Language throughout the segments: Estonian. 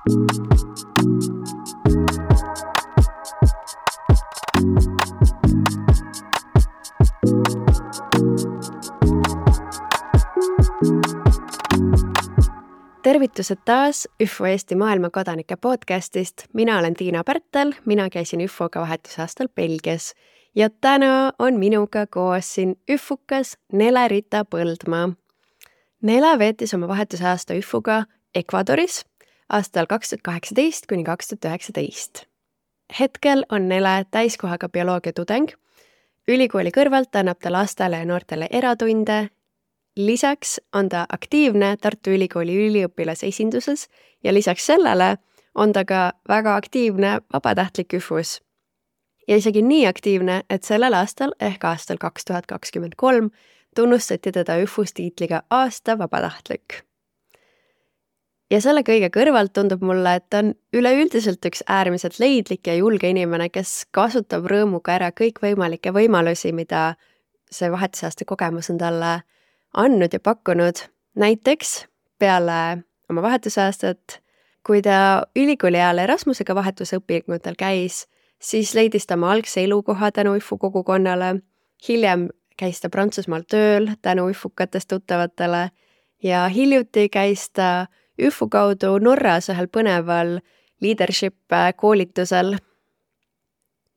Tervitused taas ÜFO Eesti maailmakodanike podcastist. Mina olen Tiina Pärtel, mina käisin ÜFOga vahetusaastal Belgias ja täna on minuga koos siin ÜFUkas Nele-Rita Põldmaa. Nele veetis oma vahetusaasta ÜFOga Ecuadoris aastal 2018 kuni 2019. Hetkel on Nele täiskohaga bioloogia tudeng. Ülikooli kõrvalt annab ta lastele ja noortele eratunde. Lisaks on ta aktiivne Tartu Ülikooli üliõpilase esinduses ja lisaks sellele on ta ka väga aktiivne vabatahtlik ÜFUs. Ja isegi nii aktiivne, et sellel aastal ehk aastal 2023 tunnustati teda ÜFUs tiitliga aasta vabatahtlik. Ja selle kõige kõrvalt tundub mulle, et ta on üleüldiselt üks äärmiselt leidlik ja julge inimene, kes kasutab rõõmuga ära kõikvõimalikke võimalusi, mida see vahetusaasta kogemus on talle andnud ja pakkunud. Näiteks peale oma vahetusaastat, kui ta ülikooli ajal Erasmusega vahetusõpingutel käis, siis leidis ta oma algse elukoha tänu ÜFO kogukonnale. Hiljem käis ta Prantsusmaal tööl tänu ÜFUkatest tuttavatele ja hiljuti käis ta ÜFO kaudu Norras ühel põneval leadership koolitusel.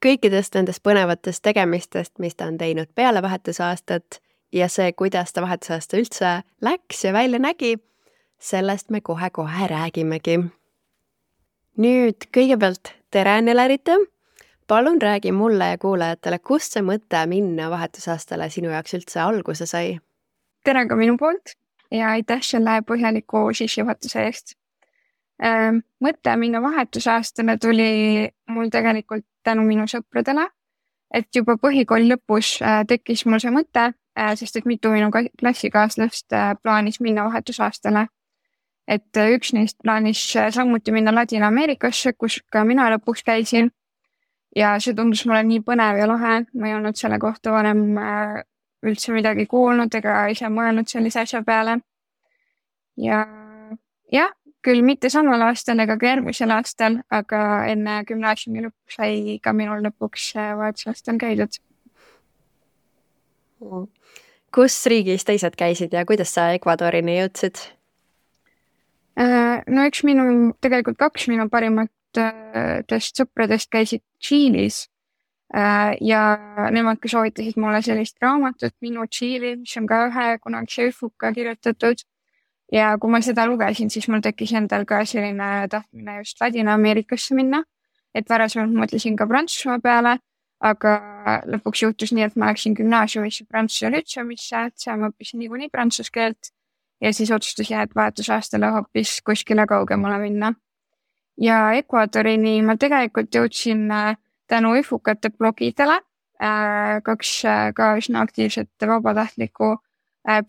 Kõikidest nendest põnevatest tegemistest, mis ta on teinud peale vahetusaastat, ja see, kuidas ta vahetusaasta üldse läks ja välja nägi, sellest me kohe-kohe räägimegi. Nüüd kõigepealt tere, Nele-Rita. Palun räägi mulle ja kuulajatele, kust see mõte minna vahetusaastale sinu jaoks üldse alguse sai? Tere ka minu poolt ja aitäh selle põhjaliku sissejuhatuse eest. Mõte minna vahetusaastale tuli mul tegelikult tänu minu sõpradele, et juba põhikooli lõpus tekkis mul see mõte, sest et mitu minu klassikaaslast plaanis minna vahetusaastale. Et üks neist plaanis samuti minna Ladina-Ameerikasse, kus ka mina lõpuks käisin. Ja see tundus mulle nii põnev ja lahe. Ma ei olnud selle kohta varem üldse midagi kuulnud ega ise mõelnud sellise asja peale. Ja küll mitte samal aastal ega ka järgmisel aastal, aga enne gümnaasiumi lõppu sai ka minul lõpuks vahetusaastal käidud. Kus riigis teised käisid ja kuidas sa Ecuadorini jõudsid? No üks tegelikult kaks minu parimatest sõpradest käisid Tšiilis ja nemad ka soovitasid mulle sellist raamatut Minu Tšiili, mis on ka ühe kunagise ÜFUka kirjutatud. Ja kui ma seda lugesin, siis mul tekkis endal ka selline tahtmine just Ladina-Ameerikasse minna, et varasemalt mõtlesin ka Prantsusmaa peale, aga lõpuks juhtus nii, et ma läksin gümnaasiumisse Prantsuse lütseumisse, et seal ma õppisin niikuinii prantsuse keelt ja siis otsustasin, et vahetusaastale hoopis kuskile kaugemale minna. Ja Ecuadorini ma tegelikult jõudsin tänu ÜFUkate blogidele, kaks ka üsna aktiivset vabatahtlikku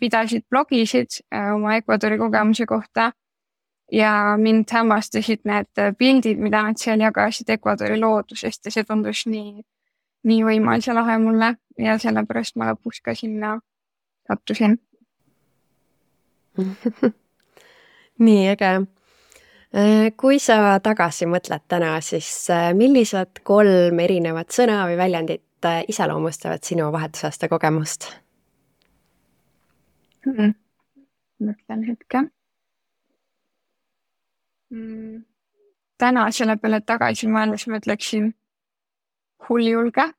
pidasid blogisid oma Ecuadori kogemuse kohta ja mind hämmastasid need pildid, mida nad seal jagasid Ecuadori loodusest ja see tundus nii võimas ja lahe mulle ja sellepärast ma lõpuks ka sinna sattusin. Nii äge. Kui sa tagasi mõtled täna, siis millised 3 erinevat sõna või väljendit iseloomustavad sinu vahetusaasta kogemust? Mõtlen hetke. Täna selle peale tagasi mõeldes mõtleksin hulljulge.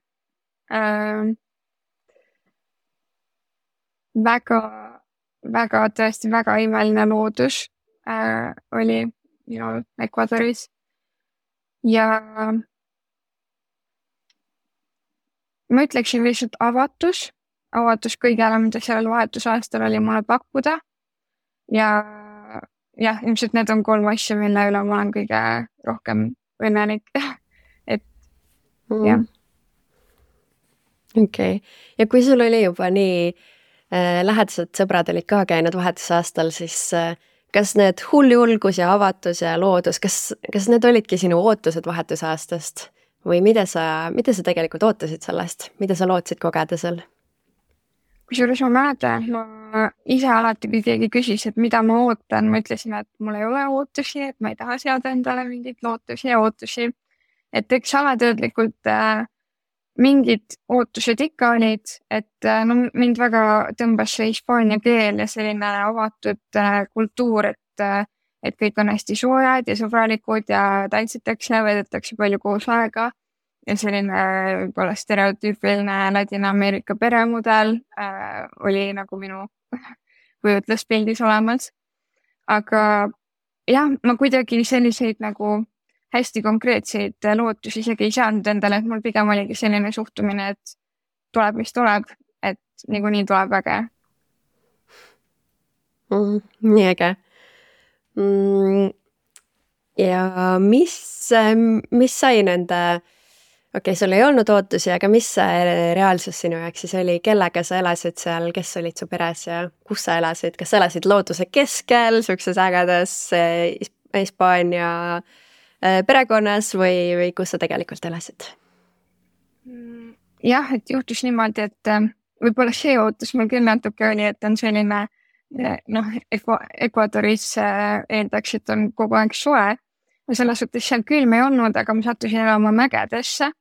Väga tõesti väga imeline loodus oli minul Ecuadoris ja ma ütleksin lihtsalt avatus kõigele, mida sellel vahetusaastal oli mulle pakkuda ja ilmselt need on 3 asja, mille üle ma olen kõige rohkem õnnelik. Jah. Okei. Ja kui sul oli juba nii lähedased sõbrad olid ka käinud vahetusaastal, siis kas need hulljulgus ja avatus ja loodus, kas need olidki sinu ootused vahetusaastast või mida sa tegelikult ootasid sellest? Mida sa lootsid kogeda seal? kusjuures ma mäletan, et ma ise alati, kui keegi küsis, et mida ma ootan, ma ütlesin, et mul ei ole ootusi, et ma ei taha seada endale mingeid lootusi ja ootusi. Et eks alateadlikult mingid ootused ikka olid, et no, mind väga tõmbas see hispaania keel ja selline avatud kultuur, et kõik on hästi soojad ja sõbralikud ja tantsitakse, veedetakse palju koos aega. Ja selline võib-olla stereotüüpiline Ladina-Ameerika peremudel oli nagu minu kujutluspildis olemas. Aga jah, ma kuidagi selliseid nagu hästi konkreetseid lootusi isegi ei saanud endale, et mul pigem oligi selline suhtumine, et tuleb, mis tuleb, et niikuinii tuleb äge. Nii äge. Ja mis sai nende... Okei, sul ei olnud ootusi, aga mis see reaalsus sinu jaoks siis oli? Kellega sa elasid seal, kes olid su peres ja kus sa elasid? Kas sa elasid looduse keskel, sukses ägedas Hispaania perekonnas või kus sa tegelikult elasid? Jah, et juhtus niimoodi, et võib-olla see ootus mul küll natuke oli, et on selline, Ecuadoris eeldaks, et on kogu aeg soe. Ja selles suhtes seal külm ei olnud, aga ma sattusin elama mägedesse.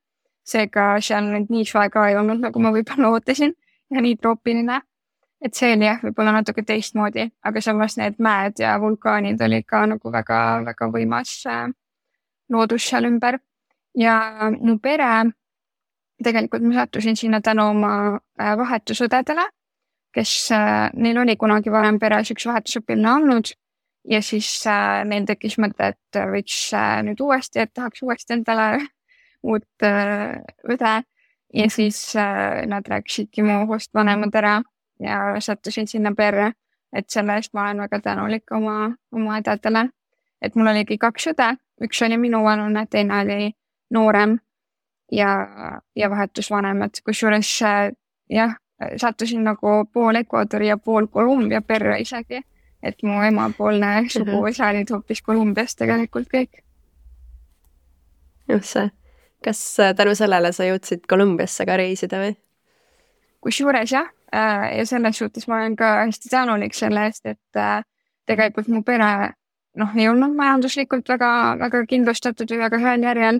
Seega seal nii soe ka ei olnud, nagu ma võib-olla ootasin ja nii troopiline. Et see oli jah, võib-olla natuke teistmoodi, aga samas need mäed ja vulkaanid olid ka nagu väga, väga võimas loodus seal ümber. Ja mu pere, tegelikult ma sattusin sinna tänu oma vahetusõdedele, kes neil oli kunagi varem peres üks vahetusõpilane olnud ja siis neil tekkis mõte, et võiks nüüd uuesti, et tahaks uuesti endale uut õde ja siis nad rääkisidki mu host vanemad ära ja sattusin sinna perre, et selle eest ma olen väga tänulik oma õdedele. Et mul oligi 2 õde, üks oli minu vanune, teine oli noorem ja vahetusvanemad, kusjuures jah, sattusin nagu pool Ecuadori ja pool Kolumbia perre isegi, et mu emapoolne suguvõsa olid hoopis Kolumbiast tegelikult kõik. Just see. Kas tänu sellele sa jõudsid Kolumbiasse ka reisida või? Kusjuures jah, ja selles suhtes ma olen ka hästi tänulik selle eest, et tegelikult mu pere ei olnud majanduslikult väga, väga kindlustatud või väga heal järjel,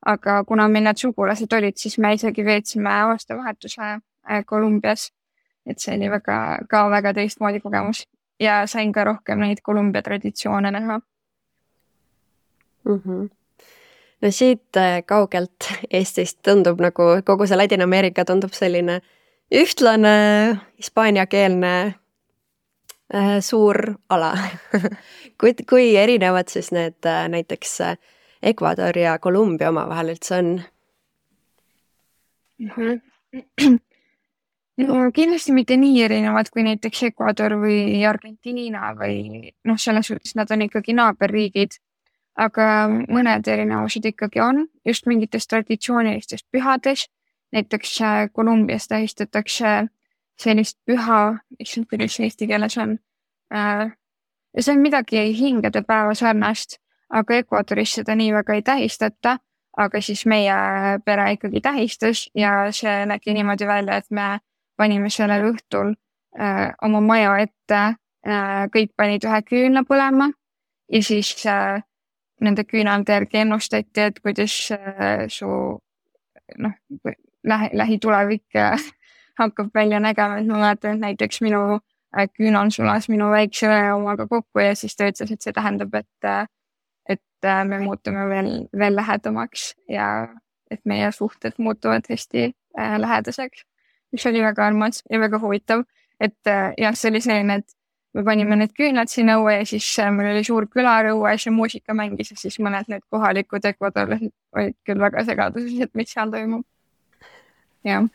aga kuna meil need sugulased olid, siis me isegi veetsime aastavahetuse Kolumbias, et see oli väga teistmoodi kogemus ja sain ka rohkem neid Kolumbia traditsioone näha. No siit kaugelt Eestist tundub nagu kogu see Ladina-Ameerika tundub selline ühtlane hispaaniakeelne suur ala. Kui erinevad siis need näiteks Ecuador ja Kolumbia omavahel üldse on? No kindlasti mitte nii erinevad kui näiteks Ecuador või Argentiina või selles suhtes nad on ikkagi naaberriigid. Aga mõned erinevused ikkagi on just mingites traditsioonilistest pühades. Näiteks Kolumbias tähistatakse sellist püha, mis eesti keeles on. Ja see on midagi hingede päeva sarnast, aga Ecuadoris seda nii väga ei tähistata, aga siis meie pere ikkagi tähistas ja see nägi niimoodi välja, et me panime sellel õhtul oma maja ette, kõik panid ühe küünla põlema ja siis nende küünalde järgi ennustati, et kuidas su lähitulevik hakkab välja nägema, et ma mäletan, et näiteks minu küünal sulas minu väikse õe omaga kokku ja siis ta ütles, et see tähendab, et me muutume veel lähedamaks ja et meie suhted muutuvad hästi lähedaseks, mis oli väga armas ja väga huvitav, et jah, see oli selline, et me panime need küünlad sinna õue ja siis meil oli suur külarõue ja muusika mängis ja siis mõned need kohalikud ekvadorlased olid küll väga segaduses, et mis seal toimub. Jah.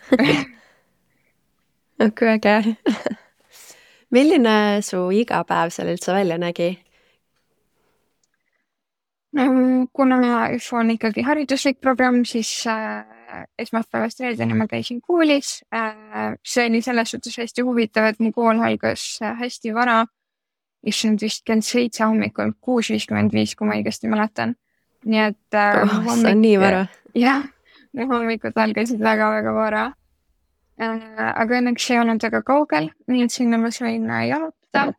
Kui äge. Milline su igapäev seal üldse välja nägi? Kuna on ikkagi hariduslik programm, siis esmaspäevast reedeni ma käisin koolis. See oli selles suhtes hästi huvitav, et mu kool algas hästi vara. Issand vist kell 7 hommikul, 6:55, kui ma õigesti mäletan. Nii et see on nii vara. Jah, hommikud algasid väga-väga vara. aga õnneks ei olnud väga kaugel, nii et sinna ma sain jalutada.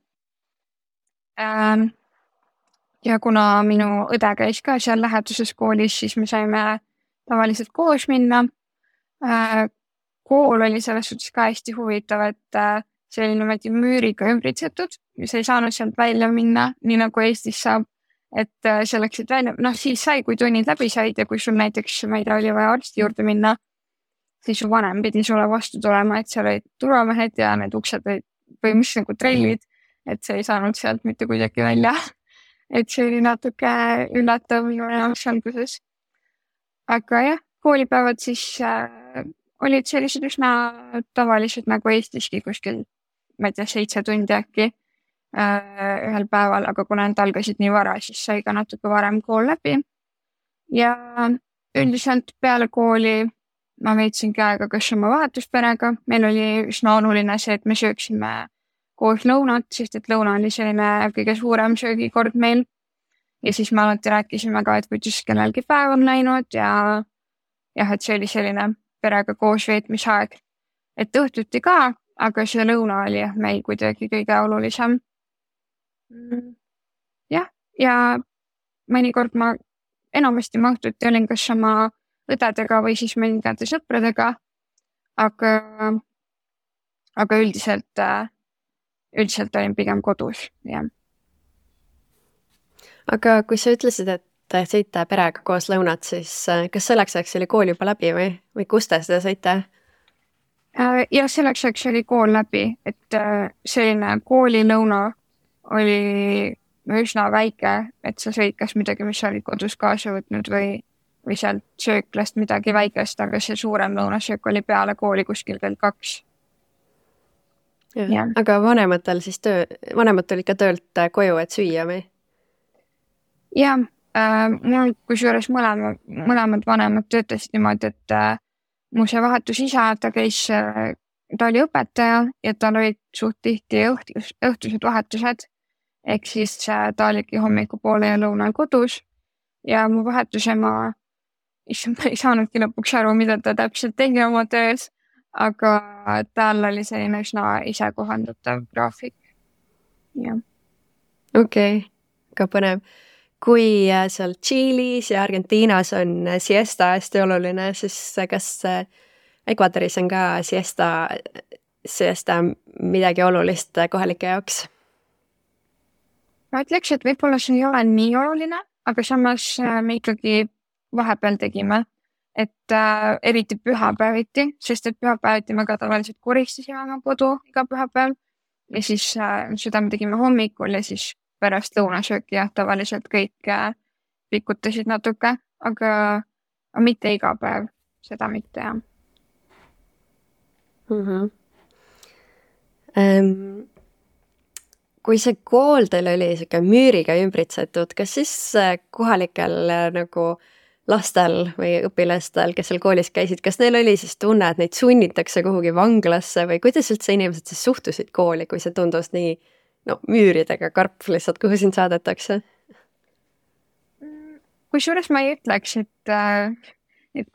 Ja kuna minu õde käis ka seal läheduses koolis, siis me saime tavaliselt koos minna. Kool oli selles suhtes ka hästi huvitav, et see oli niimoodi müüriga ümbritsetud ja sa ei saanud sealt välja minna, nii nagu Eestis saab. Et sa läksid välja, siis sai, kui tunnid läbi said ja kui sul näiteks, ma ei tea, oli vaja arsti juurde minna, siis su vanem pidi sulle vastu tulema, et seal olid turvamehed ja need uksed olid põhimõtteliselt nagu trellid, et sa ei saanud sealt mitte kuidagi välja. Et see oli natuke üllatav minu jaoks alguses. Aga jah, koolipäevad siis olid sellised üsna tavalised nagu Eestiski kuskil, ma ei tea, 7 tundi äkki ühel päeval, aga kuna need algasid nii vara, siis sai ka natuke varem kool läbi. Ja üldiselt peale kooli ma veetsin aega kas oma vahetusperega. Meil oli üsna oluline see, et me sööksime koos lõunat, sest et lõuna oli selline kõige suurem söögikord meil. Ja siis me alati rääkisime ka, et kuidas kellelgi päev on läinud ja et see oli selline perega koos veetmisaeg. Et õhtuti ka, aga see lõuna oli meil kuidagi kõige olulisem. Jah, ja mõnikord ma enamasti ma õhtuti olin kas oma õdedega või siis mõningate sõpradega, aga üldiselt olin pigem kodus, jah. Aga kui sa ütlesid, et sõite perega koos lõunat, siis kas selleks ajaks oli kool juba läbi või kus te seda sõite? Ja selleks ajaks oli kool läbi, et selline koolilõuna oli üsna väike, et sa sõid kas midagi, mis olid kodus kaasa võtnud või sealt sööklast midagi väikest, aga see suurem lõunasöök oli peale kooli kuskil kell 2. Ja. Aga vanemad olid ka töölt koju, et süüa või? Ja, mul kusjuures mõlemad vanemad töötasid niimoodi, et mu see vahetusisa, ta oli õpetaja ja tal olid suht tihti õhtused vahetused, ehk siis ta oligi hommikupoole ja lõunal kodus ja mu vahetusema ei saanudki lõpuks aru, mida ta täpselt tegi oma töös, aga tal oli selline üsna ise kohandatav graafik. Okei, ka põnev. Kui seal Tšiilis ja Argentiinas on siesta hästi oluline, siis kas Ecuadoris on ka siesta midagi olulist kohalike jaoks? Ma ütleks, et võib-olla see ei ole nii oluline, aga samas me ikkagi vahepeal tegime, et eriti pühapäeviti, sest et pühapäeviti me ka tavaliselt koristasime oma kodu iga pühapäev ja siis seda me tegime hommikul ja siis pärast lõunasööki ja tavaliselt kõik pikutasid natuke, aga mitte iga päev, seda mitte jah. Kui see kool teil oli siuke müüriga ümbritsetud, kas siis kohalikel nagu lastel või õpilastel, kes seal koolis käisid, kas neil oli siis tunne, et neid sunnitakse kuhugi vanglasse või kuidas üldse inimesed siis suhtusid kooli, kui see tundus nii müüridega karp lihtsalt, kuhu sind saadetakse? Kusjuures ma ei ütleks, et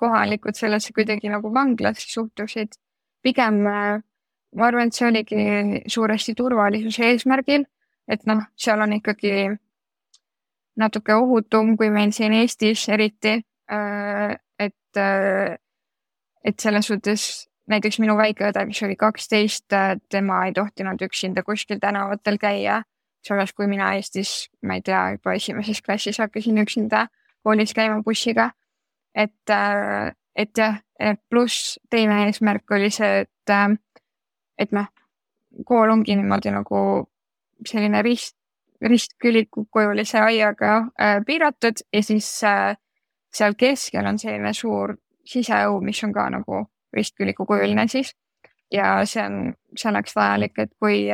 kohalikud sellesse kuidagi nagu vanglasse suhtusid. Pigem ma arvan, et see oligi suuresti turvalisuse eesmärgil, et seal on ikkagi natuke ohutum kui meil siin Eestis eriti, et selles suhtes näiteks minu väikeõde, mis oli 12, tema ei tohtinud üksinda kuskil tänavatel käia. Selles kui mina Eestis, ma ei tea, juba 1. klassis hakkasin üksinda koolis käima bussiga. Et jah, pluss teine eesmärk oli see, et kool ongi niimoodi nagu selline ristkülikukujulise aiaga piiratud ja siis seal keskel on selline suur siseõu, mis on ka nagu ristkülikukujuline siis ja see on selleks vajalik, et kui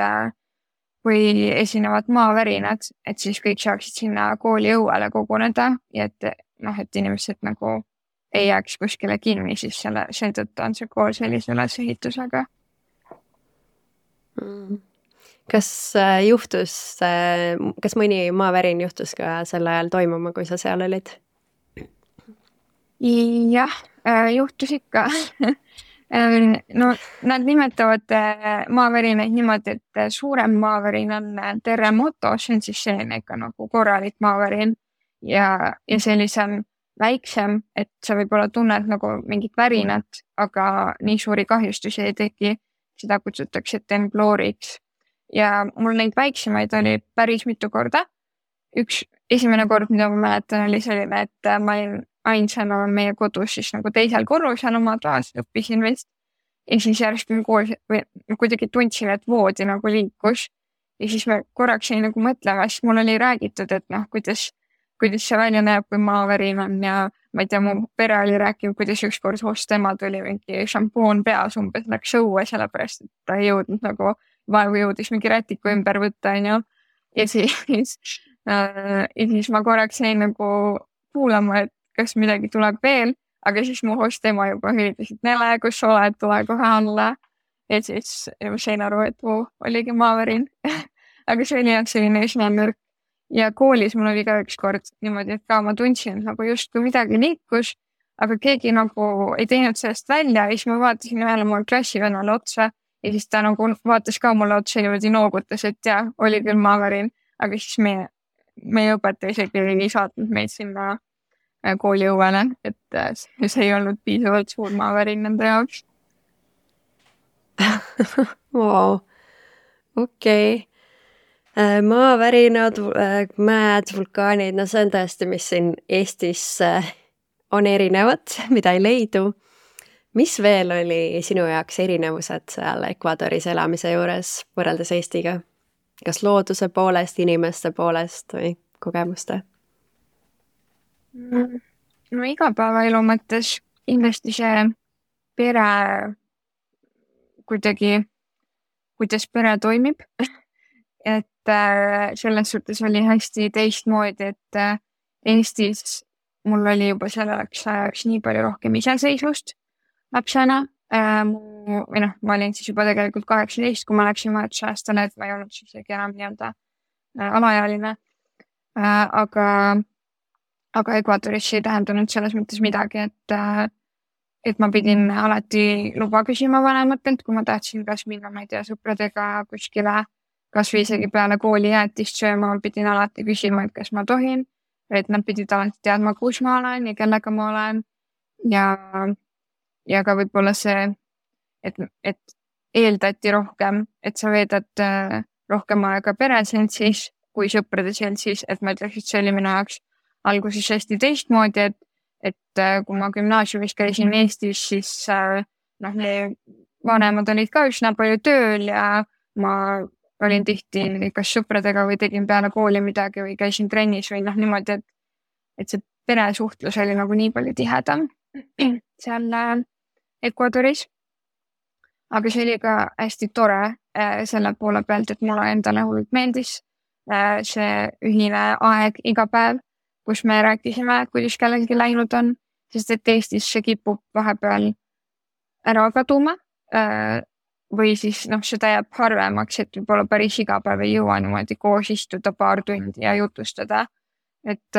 esinevad maavärinad, et siis kõik saaksid sinna kooli õuele koguneda ja et inimesed nagu ei jääks kuskile kinni, siis seetõttu on see kool sellise ülesehitusega. Kas mõni maavärin juhtus ka sel ajal toimuma, kui sa seal olid? Jah, juhtus ikka. No nad nimetavad maavärinaid niimoodi, et suurem maavärin on terremoto, see on siis selline ikka nagu korralik maavärin ja sellisem väiksem, et sa võib-olla tunned nagu mingit värinat, aga nii suuri kahjustusi ei teki. Seda kutsutakse tembloriks. Ja mul neid väiksemaid oli päris mitu korda. Esimene kord, mida ma mäletan, oli selline, et ma olin ainsana meie kodus siis nagu teisel korrusel oma toas, õppisin vist. Ja siis järsku kuidagi tundsin, et voodi nagu liikus. Ja siis me korraks jäi nagu mõtlema, siis mul oli räägitud, et kuidas see välja näeb, kui maavärin on ja ma ei tea, mu pere oli rääkinud, kuidas ükskord host ema tuli mingi šampoon peas umbes läks õue, sellepärast, et ta ei jõudnud nagu vaevu jõudis mingi rätiku ümber võtta, on ju. Ja siis ma korraks jäin nagu kuulama, et kas midagi tuleb veel, aga siis mu host ema juba hülitas, et Nele, kus sa oled, tule kohe alla. Ja siis ma sain aru, et oligi maavärin. Aga see oli jah selline üsna nõrk. Ja koolis mul oli ka üks kord niimoodi, et ka ma tundsin, et nagu just kui midagi liikus, aga keegi nagu ei teinud sellest välja. Ja siis ma vaatasin ühele mul klassivennale otsa ja siis ta nagu vaatas ka mulle otsa niimoodi noogutas, et jah, oli küll maavärin, aga siis meie õpetaja isegi ei saatnud meid sinna kooli õuele, et see ei olnud piisavalt suur maavärin nende jaoks. Wow. Okei. Maavärinad, mäed, vulkaanid, no see on tõesti, mis siin Eestis on erinevad, mida ei leidu. Mis veel oli sinu jaoks erinevused seal Ecuadoris elamise juures võrreldes Eestiga? Kas looduse poolest, inimeste poolest või kogemuste? No igapäevaelu mõttes kindlasti see pere kuidagi, kuidas pere toimib. Et selles suhtes oli hästi teistmoodi, et Eestis mul oli juba selleks ajaks nii palju rohkem iseseisvust lapsena. Ma olin siis juba tegelikult 18, kui ma läksin vahetusaastale, et ma ei olnud siis enam nii-öelda alaealine. Aga Ecuadoris ei tähendanud selles mõttes midagi, et ma pidin alati luba küsima vanematelt, kui ma tahtsin kas minna, ma ei tea, sõpradega kuskile, kas või isegi peale kooli jäätist sööma, pidin alati küsima, et kas ma tohin, et nad pidid alati teadma, kus ma olen ja kellega ma olen. Ja ka võib-olla see, et eeldati rohkem, et sa veedad rohkem aega pereseltsis kui sõprade seltsis, et ma ütleks, et see oli minu jaoks alguses hästi teistmoodi, et kui ma gümnaasiumis käisin Eestis, siis vanemad olid ka üsna palju tööl ja ma olin tihti kas sõpradega või tegin peale kooli midagi või käisin trennis või niimoodi, et see peresuhtlus oli nagu nii palju tihedam seal Ecuadoris. Aga see oli ka hästi tore selle poole pealt, et mulle endale hullult meeldis see ühine aeg iga päev, kus me rääkisime, kuidas kellelgi läinud on, sest et Eestis see kipub vahepeal ära kaduma või siis seda jääb harvemaks, et võib-olla päris iga päev ei jõua niimoodi koos istuda paar tundi ja jutustada, et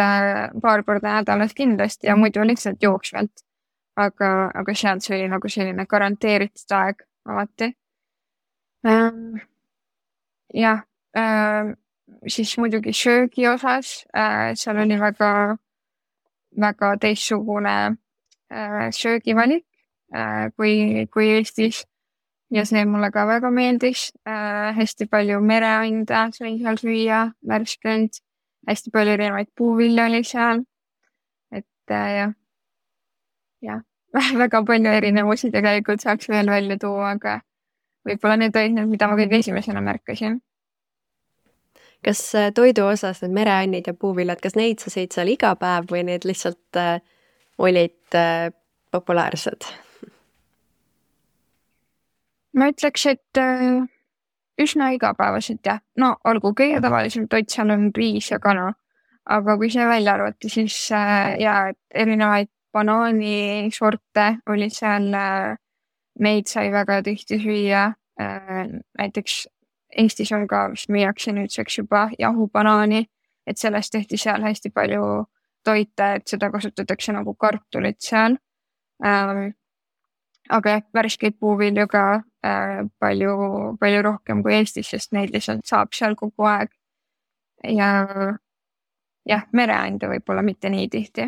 paar korda nädalas kindlasti ja muidu lihtsalt jooksvalt. Aga seal see oli nagu selline garanteeritud aeg alati. Siis muidugi söögi osas, seal oli väga teistsugune söögivalik kui Eestis ja see mulle ka väga meeldis. Hästi palju mereanda sain seal süüa, värskend, hästi palju erinevaid puuvilja oli seal, et väga palju erinevusi tegelikult saaks veel välja tuua, aga võib-olla need olid need, mida ma kõige esimesena märkasin. Kas toidu osas need mereannid ja puuviljad, kas neid sa sõid seal iga päev või need lihtsalt olid populaarsed? Ma ütleks, et üsna igapäevaselt jah. No olgu, kõige tavalisem toit seal on riis ja kana, aga kui see välja arvati, siis erinevaid banaanisorte oli seal, neid sai väga tihti süüa. Näiteks Eestis on ka, mis müüakse nüüdseks juba jahubanaani, et sellest tehti seal hästi palju toite, et seda kasutatakse nagu kartulit seal. aga värskeid puuvilju ka palju rohkem kui Eestis, sest neid lihtsalt saab seal kogu aeg. Ja jah, mereande võib-olla mitte nii tihti.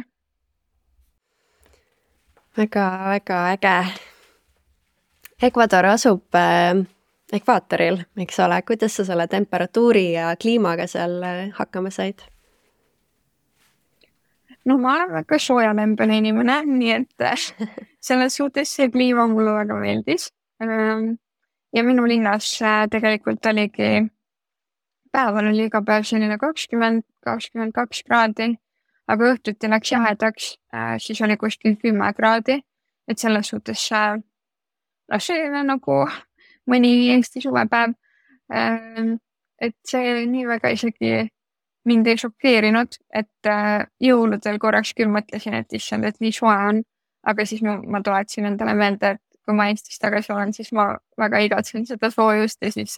Väga äge. Ecuador asub ekvaatoril, eks ole. Kuidas sa selle temperatuuri ja kliimaga seal hakkama said? No ma olen väga soojalembene inimene, nii et selles suhtes see kliima mulle väga meeldis. Ja minu linnas tegelikult oligi, päeval oli iga päev selline 20-22 kraadi, aga õhtuti läks jahedaks, siis oli kuskil 10 kraadi, et selles suhtes see nagu mõni Eesti suvepäev, et see nii väga isegi mind ei šokeerinud, et jõuludel korraks küll mõtlesin, et issand, et nii soe on, aga siis ma tuletasin endale meelde, et kui ma Eestis tagasi olen, siis ma väga igatsen seda soojust ja siis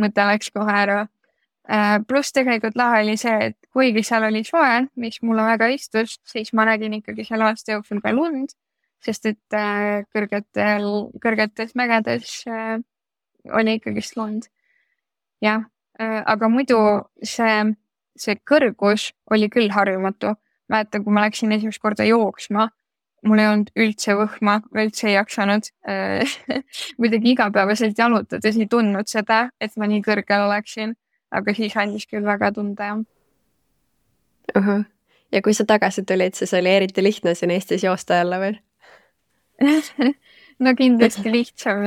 mõte läks kohe ära. Pluss tegelikult lahe oli see, et kuigi seal oli soe, mis mulle väga istus, siis ma nägin ikkagi selle aasta jooksul ka lund, sest et kõrgetes mägedes oli ikkagi lund. Jah, aga muidu see kõrgus oli küll harjumatu. Mäletan, kui ma läksin esimest korda jooksma, mul ei olnud üldse võhma, üldse ei jaksanud. Muidugi igapäevaselt jalutades ei tundnud seda, et ma nii kõrgel oleksin, aga siis andis küll väga tunda. Ja kui sa tagasi tulid, siis oli eriti lihtne siin Eestis joosta jälle või? No kindlasti lihtsam,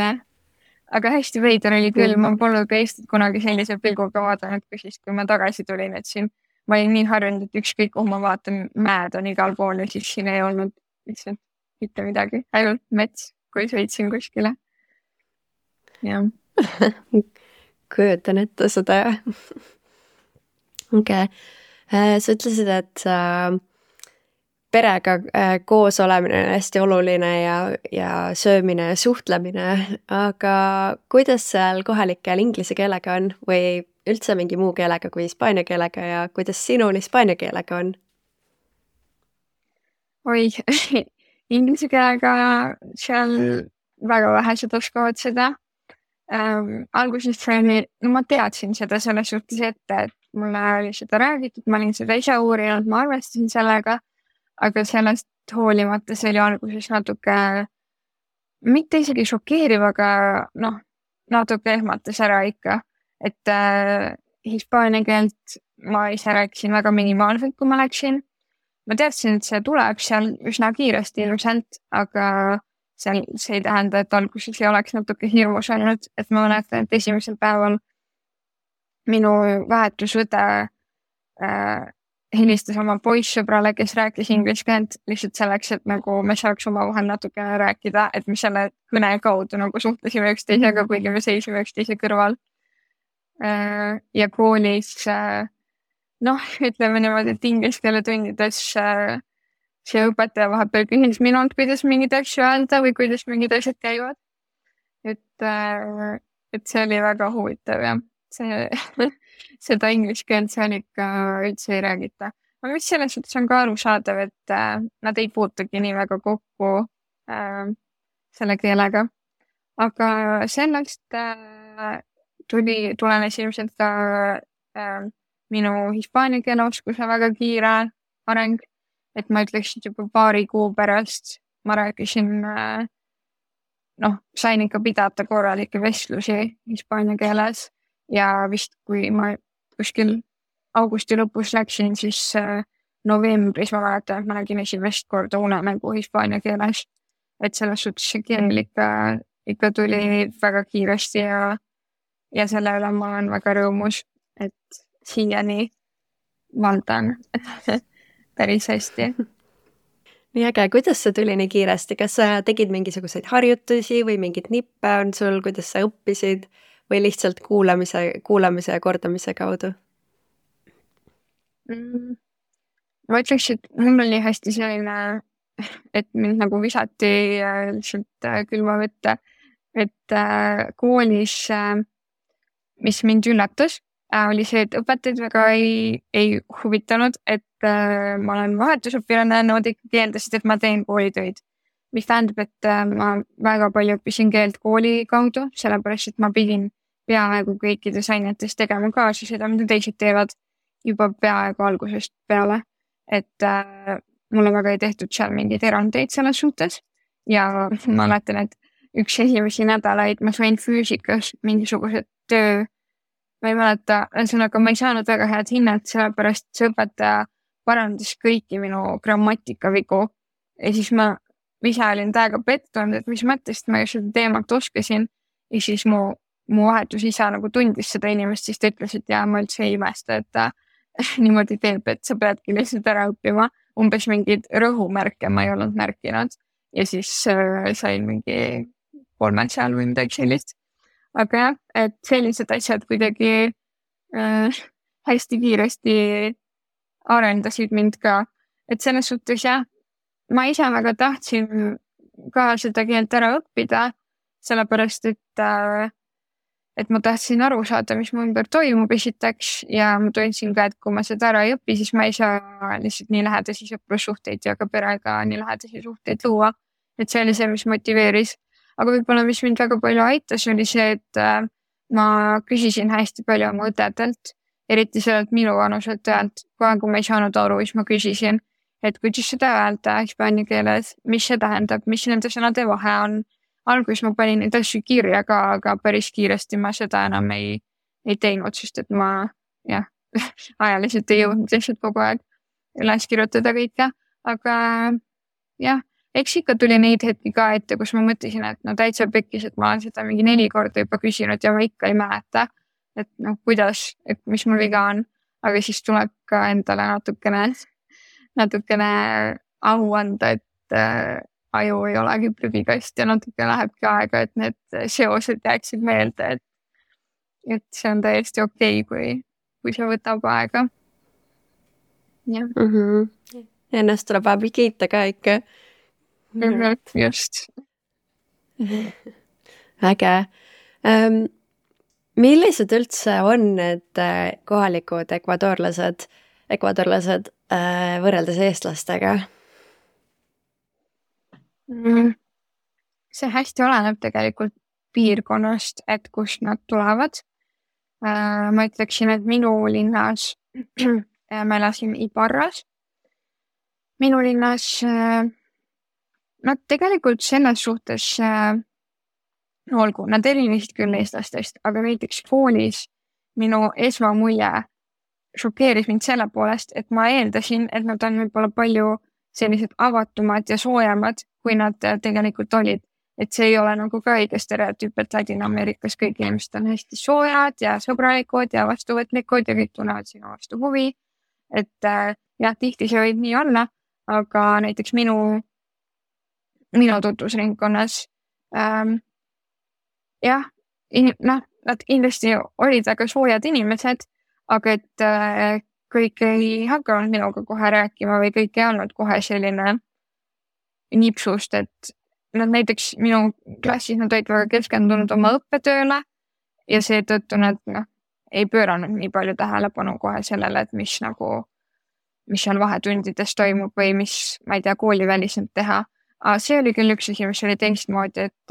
aga hästi veider oli küll, ma polnud ka Eestit kunagi sellise pilguga vaadanud, kui siis, kui ma tagasi tulin, et siin ma olin nii harjunud, et ükskõik kuhu ma vaatan, mäed on igal pool ja siis siin ei olnud lihtsalt mitte midagi, ainult mets, kui sõitsin kuskile. Jah. Kujutan ette seda. Okay. Sa ütlesid, et perega koos olemine on hästi oluline ja söömine ja suhtlemine, aga kuidas seal kohalikel inglise keelega on või üldse mingi muu keelega kui hispaania keelega ja kuidas sinul hispaania keelega on? Oi, inglise keelega seal väga vähesed oskavad seda. Alguses ma teadsin seda selles suhtes ette, et mulle oli seda räägitud, ma olin seda ise uurinud, ma arvestasin sellega, aga sellest hoolimata see oli alguses natuke, mitte isegi šokeeriv, aga natuke ehmatas ära ikka, et hispaania keelt ma ise rääkisin väga minimaalselt, kui ma läksin. Ma teadsin, et see tuleb seal üsna kiiresti ilusalt, aga see ei tähenda, et alguses ei oleks natuke hirmus olnud, et ma mäletan, et esimesel päeval minu vahetusõde helistas oma poissõbrale, kes rääkis inglise keelt lihtsalt selleks, et nagu me saaks omavahel natuke rääkida, et me selle kõne kaudu nagu suhtlesime üksteisega, kuigi me seisime üksteise kõrval. Ja koolis, ütleme niimoodi, et inglise keele tundides see õpetaja vahepeal küsis minult, kuidas mingid asju öelda või kuidas mingid asjad käivad. Et see oli väga huvitav ja seda inglise keelt seal ikka üldse ei räägita. Aga mis selles suhtes on ka arusaadav, et nad ei puutugi nii väga kokku selle keelega. Aga sellest tulenes ilmselt ka minu hispaania keele oskuse väga kiire areng. Et ma ütleksin juba paari kuu pärast ma rääkisin, sain ikka pidada korralikke vestlusi hispaania keeles ja vist kui ma kuskil augusti lõpus läksin, siis novembris ma mäletan, et ma nägin esimest korda unemängu hispaania keeles. Et selles suhtes see keel ikka tuli väga kiiresti ja selle üle ma olen väga rõõmus, et siiani valdan päris hästi. Nii äge, kuidas see tuli nii kiiresti? Kas sa tegid mingisuguseid harjutusi või mingid nippe on sul, kuidas sa õppisid või lihtsalt kuulamise ja kordamise kaudu? Ma ütleks, et mul oli hästi selline, et mind nagu visati lihtsalt külma võtta, et koolis, mis mind üllatas, oli see, et õpetajad väga ei huvitanud, et ma olen vahetusõpilane, nad ikkagi eeldasid, et ma teen koolitöid. mis tähendab, et ma väga palju õppisin keelt kooli kaudu, sellepärast et ma pidin peaaegu kõikides ainetes tegema kaasa seda, mida teised teevad juba peaaegu algusest peale. Et mulle väga ei tehtud seal mingeid erandeid selles suhtes ja ma mäletan, et üks esimesi nädalaid ma sain füüsikas mingisugused töö, ma ei mäleta, ühesõnaga ma ei saanud väga head hinnet, sellepärast see õpetaja parandas kõiki minu grammatikavigu ja siis ma ise olin täiega pettunud, et mis mõttest ma ju seda teemat oskasin ja siis mu vahetus isa nagu tundis seda inimest, siis ta ütles, et jaa, ma üldse ei imesta, et ta niimoodi teeb, et sa peadki lihtsalt ära õppima. Umbes mingeid rõhumärke ma ei olnud märkinud ja siis sain mingi 3 seal või midagi sellist. Aga jah, et sellised asjad kuidagi hästi kiiresti arendasid mind ka. Et selles suhtes jah, ma ise väga tahtsin ka seda keelt ära õppida, sellepärast et ma tahtsin aru saada, mis mu ümber toimub esiteks ja ma tundsin ka, et kui ma seda ära ei õpi, siis ma ei saa lihtsalt nii lähedasi sõprussuhteid ja ka perega nii lähedasi suhteid luua. Et see oli see, mis motiveeris. Aga võib-olla, mis mind väga palju aitas, oli see, et ma küsisin hästi palju oma õdedelt, eriti sellelt minu vanuselt õelt. Kui ma ei saanud aru, siis ma küsisin, et kuidas seda öelda hispaania keeles, mis see tähendab, mis nende sõnade vahe on. Alguses ma panin neid asju kirja ka, aga päris kiiresti ma seda enam ei teinud, sest et ma ajaliselt ei jõudnud lihtsalt kogu aeg üles kirjutada kõike. Aga jah, eks ikka tuli neid hetki ka ette, kus ma mõtlesin, et no täitsa pekkis, et ma olen seda mingi 4 korda juba küsinud ja ma ikka ei mäleta, et kuidas, et mis mul viga on. Aga siis tuleb ka endale natukene au anda, et aju ei olegi prügikast ja natuke lähebki aega, et need seosed jääksid meelde, et see on täiesti okei, kui see võtab aega. Jah. Ennast tuleb vahepeal kiita ka ikka. Just. Äge. Millised üldse on need kohalikud ekvadorlased võrreldes eestlastega? See hästi oleneb tegelikult piirkonnast, et kust nad tulevad. Ma ütleksin, et minu linnas ma elasin Ibarras. Minu linnas nad tegelikult selles suhtes olgu, nad erinesid küll eestlastest, aga näiteks koolis minu esmamulje šokeeris mind selle poolest, et ma eeldasin, et nad on võib-olla palju sellised avatumad ja soojemad, kui nad tegelikult olid. Et see ei ole nagu ka õige stereotüüp, et Ladina-Ameerikas kõik inimesed on hästi soojad ja sõbralikud ja vastuvõtlikud ja kõik tunnevad sinu vastu huvi. Et jah, tihti see võib nii olla, aga näiteks minu tutvusringkonnas nad kindlasti olid väga soojad inimesed, aga et kõik ei hakanud minuga kohe rääkima või kõik ei olnud kohe selline nipsust, et nad näiteks minu klassis nad olid väga keskendunud oma õppetööle ja seetõttu nad ei pööranud nii palju tähelepanu kohe sellele, et mis seal vahetundides toimub või mis, ma ei tea, kooliväliselt teha. Aga see oli küll üks asi, mis oli teistmoodi, et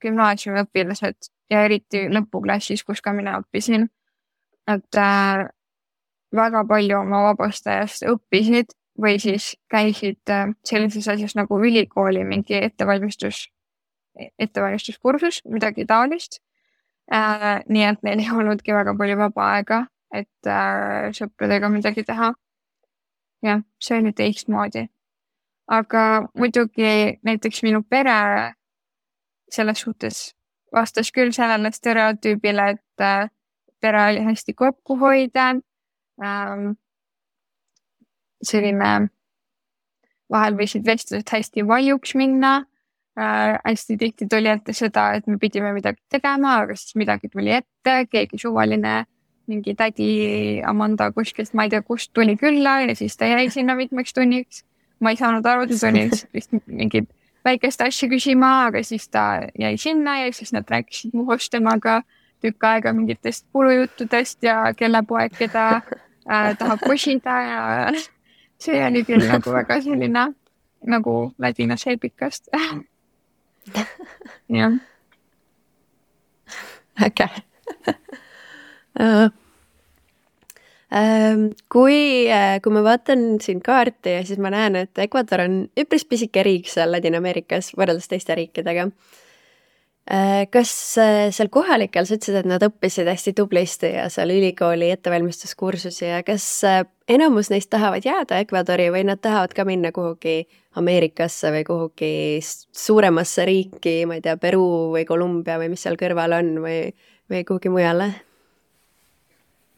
gümnaasiumiõpilased ja eriti lõpuklassis, kus ka mina õppisin, et väga palju oma vabast ajast õppisid või siis käisid sellises asjas nagu ülikooli mingi ettevalmistuskursus, midagi taolist. Nii et neil ei olnudki väga palju vaba aega, et sõpradega midagi teha. Jah, see oli teistmoodi. Aga muidugi näiteks minu pere selles suhtes vastas küll sellele stereotüübile, et pere oli hästi kokkuhoidev. Selline vahel võisid vestlused hästi valjuks minna. Hästi tihti tuli ette seda, et me pidime midagi tegema, aga siis midagi tuli ette, keegi suvaline, mingi tädi Amanda kuskilt, ma ei tea, kust tuli külla ja siis ta jäi sinna mitmeks tunniks. Ma ei saanud aru, ta tuli lihtsalt mingid väikest asja küsima, aga siis ta jäi sinna ja siis nad rääkisid muhust temaga tükk aega mingitest kulujuttudest ja kelle poeg, keda tahab kosida ja see oli küll nagu väga selline nagu Ladinas eepikast. jah. Äge. Kui ma vaatan siin kaarti ja siis ma näen, et Ecuador on üpris pisike riik seal Ladina-Ameerikas võrreldes teiste riikidega. Kas seal kohalikel sa ütlesid, et nad õppisid hästi tublisti ja seal ülikooli ettevalmistuskursusi ja kas enamus neist tahavad jääda Ecuadori või nad tahavad ka minna kuhugi Ameerikasse või kuhugi suuremasse riiki, ma ei tea, Peru või Kolumbia või mis seal kõrval on või kuhugi mujale?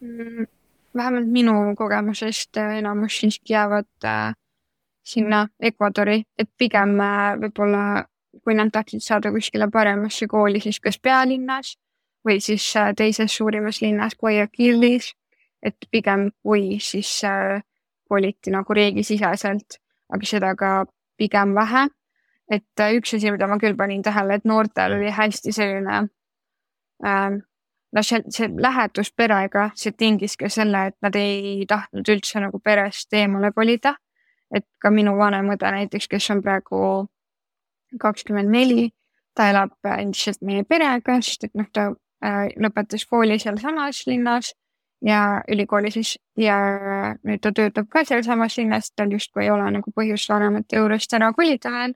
Vähemalt minu kogemusest enamus siiski jäävad sinna Ecuadori, et pigem võib-olla kui nad tahtsid saada kuskile paremasse kooli, siis kas pealinnas või siis teises suurimas linnas Guayaquilis, et pigem kui siis koliti nagu riigisiseselt, aga seda ka pigem vähe. Et üks asi, mida ma küll panin tähele, et noortel oli hästi selline see lähedus perega, see tingis ka selle, et nad ei tahtnud üldse nagu perest eemale kolida. Et ka minu vanem õde näiteks, kes on praegu 24, ta elab endiselt meie perega, sest et ta lõpetas kooli seal samas linnas ja ülikooli siis ja nüüd ta töötab ka seal samas linnas, tal justkui ei ole nagu põhjust vanemate juurest ära kolida veel.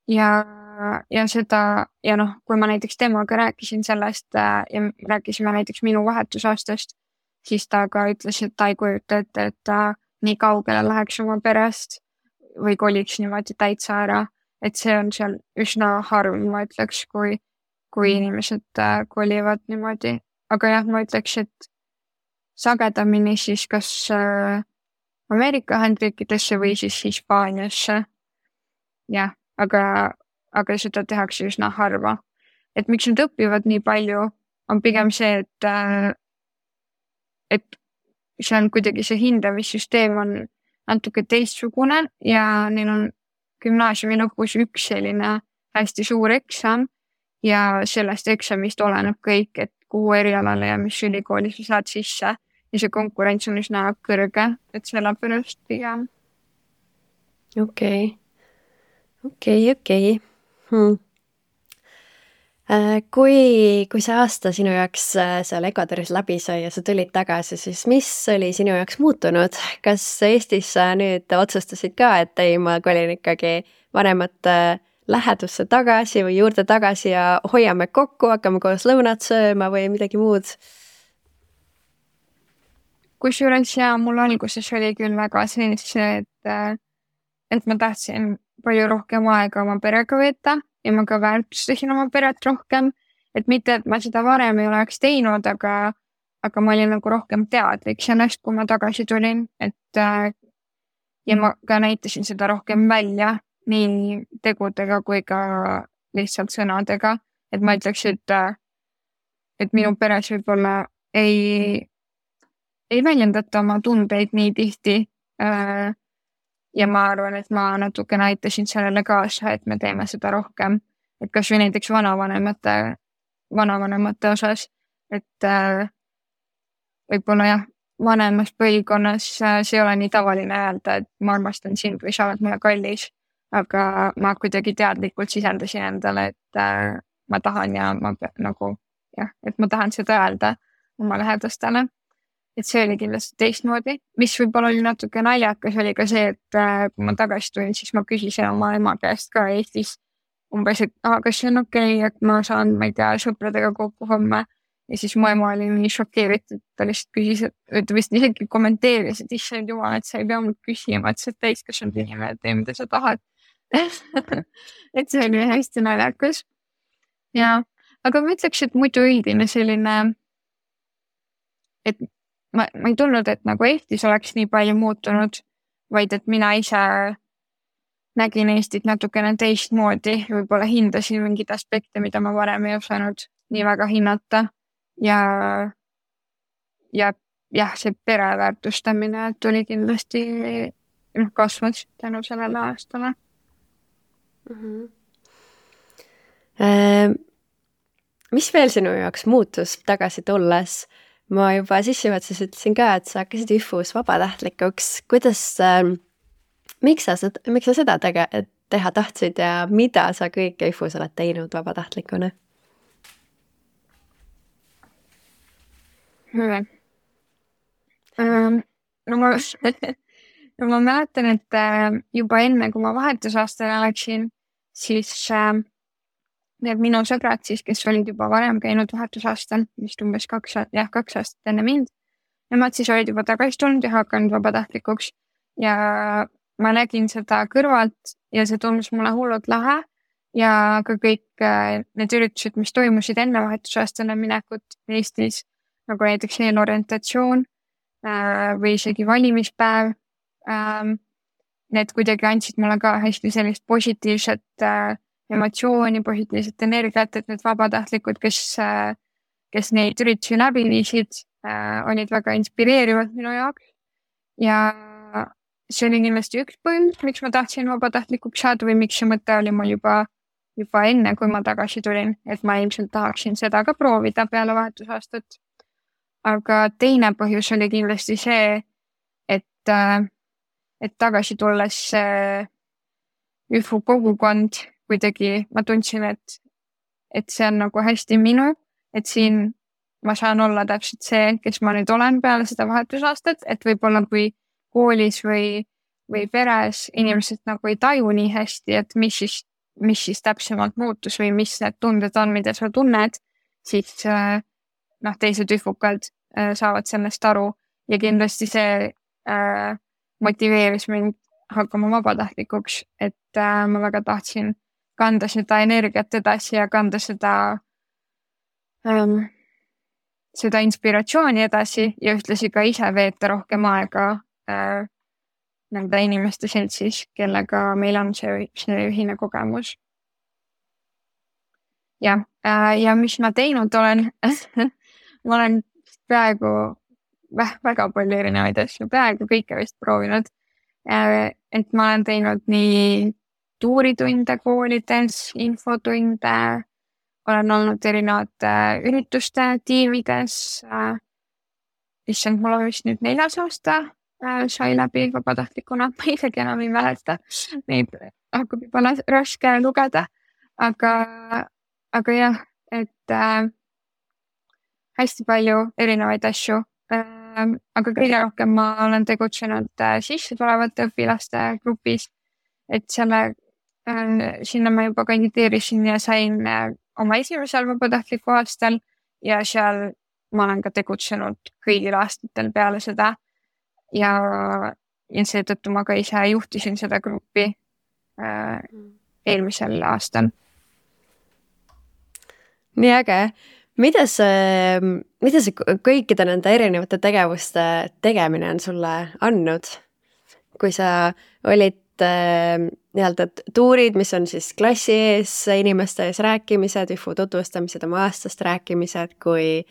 Ja seda, ja kui ma näiteks temaga rääkisin sellest ja rääkisime näiteks minu vahetusaastast, siis ta ka ütles, et ta ei kujuta ette, et ta nii kaugele läheks oma perest või koliks niimoodi täitsa ära. Et see on seal üsna harv, ma ütleks, kui inimesed kolivad niimoodi. Aga jah, ma ütleks, et sagedamini siis kas Ameerika Ühendriikidesse või siis Hispaaniasse. Jah, aga seda tehakse üsna harva. Et miks nad õpivad nii palju, on pigem see, et see on kuidagi see hindamissüsteem on natuke teistsugune ja neil on gümnaasiumi lõpus üks selline hästi suur eksam ja sellest eksamist oleneb kõik, et kuhu erialale ja mis ülikooli sa saad sisse ja see konkurents on üsna kõrge, et sellepärast pigem. Okei. Kui see aasta sinu jaoks seal Ecuadoris läbi sai ja sa tulid tagasi, siis mis oli sinu jaoks muutunud? Kas Eestis sa nüüd otsustasid ka, et ei, ma kolin ikkagi vanemate lähedusse tagasi või juurde tagasi ja hoiame kokku, hakkame koos lõunat sööma või midagi muud? Kusjuures ja mul alguses oli küll väga see, et ma tahtsin palju rohkem aega oma perega veeta ja ma ka väärtustasin oma peret rohkem, et mitte, et ma seda varem ei oleks teinud, aga ma olin nagu rohkem teadlik sellest, kui ma tagasi tulin, et ja ma ka näitasin seda rohkem välja nii tegudega kui ka lihtsalt sõnadega, et ma ütleks, et minu peres võib-olla ei väljendata oma tundeid nii tihti ja ma arvan, et ma natuke näitasin sellele kaasa, et me teeme seda rohkem, et kas või näiteks vanavanemate osas, et võib-olla jah, vanemas põlvkonnas see ei ole nii tavaline öelda, et ma armastan sind või sa oled mulle kallis, aga ma kuidagi teadlikult sisendasin endale, et ma tahan ja ma nagu jah, et ma tahan seda öelda oma lähedastele. Et see oli kindlasti teistmoodi, mis võib-olla oli natuke naljakas, oli ka see, et kui ma tagasi tulin, siis ma küsisin oma ema käest ka Eestis umbes, et kas see on okei, et ma saan, ma ei tea, sõpradega kokku homme ja siis mu ema oli nii šokeeritud, ta lihtsalt küsis, et ta vist isegi kommenteeris, et issand jumal, et sa ei pea mul küsima, et sa täiskasvanud inimene, et tee, mida sa tahad. Et see oli hästi naljakas. Ja, aga ma ütleks, et muidu üldine selline, et ma ei tulnud, et nagu Eestis oleks nii palju muutunud, vaid et mina ise nägin Eestit natukene teistmoodi, võib-olla hindasin mingid aspekte, mida ma varem ei osanud nii väga hinnata ja see pereväärtustamine tuli kindlasti kasvas tänu sellele aastale. Mis veel sinu jaoks muutus tagasi tulles? Ma juba sissejuhatuses ütlesin ka, et sa hakkasid ÜFUs vabatahtlikuks. Kuidas miks sa seda teha tahtsid ja mida sa kõike IFUs oled teinud vabatahtlikuna? No ma mäletan, et juba enne, kui ma vahetusaastale läksin, siis need minu sõbrad siis, kes olid juba varem käinud vahetusaastal, vist umbes 2 aastat enne mind, nemad siis olid juba tagasi tulnud ja hakanud vabatahtlikuks ja ma nägin seda kõrvalt ja see tundus mulle hullult lahe ja ka kõik need üritused, mis toimusid enne vahetusaastale minekut Eestis, nagu näiteks eelorientatsioon või isegi valimispäev, need kuidagi andsid mulle ka hästi sellist positiivset emotsiooni, positiivset energiat, et need vabatahtlikud, kes neid üritusi läbi viisid, olid väga inspireerivad minu jaoks ja see oli kindlasti üks põhjus, miks ma tahtsin vabatahtlikuks saada või miks see mõte oli mul juba enne, kui ma tagasi tulin, et ma ilmselt tahaksin seda ka proovida peale vahetusaastat. Aga teine põhjus oli kindlasti see, et tagasi tulles ÜFU kogukond kuidagi ma tundsin, et see on nagu hästi minu, et siin ma saan olla täpselt see, kes ma nüüd olen peale seda vahetusaastat, et võib-olla kui koolis või peres inimesed nagu ei taju nii hästi, et mis siis täpsemalt muutus või mis need tunded on, mida sa tunned, siis teised üfukad saavad sellest aru ja kindlasti see motiveeris mind hakkama vabatahtlikuks, et ma väga tahtsin kanda seda energiat edasi ja kanda seda inspiratsiooni edasi ja ühtlasi ka ise veeta rohkem aega nende inimeste seltsis, kellega meil on see ühine kogemus. Ja mis ma teinud olen, ma olen praegu väga palju erinevaid asju, praegu kõike vist proovinud. Et ma olen teinud nii tuuritunde koolides, infotunde, olen olnud erinevate ürituste tiimides. Issand, mul on vist nüüd 4. aasta sai läbi vabatahtlikuna, ma isegi enam ei mäleta. Neid hakkab juba raske lugeda, aga jah, et hästi palju erinevaid asju. Aga kõige rohkem ma olen tegutsenud sisse tulevate õpilaste grupis, et sinna ma juba kandideerisin ja sain oma esimesel vabatahtliku aastal ja seal ma olen ka tegutsenud kõigil aastatel peale seda ja seetõttu ma ka ise juhtisin seda gruppi eelmisel aastal. Nii äge. Mida see kõikide nende erinevate tegevuste tegemine on sulle andnud? Kui sa olid nii-öelda tuurid, mis on siis klassi ees, inimeste ees rääkimised, ÜFU tutvustamised, oma aastast rääkimised, kui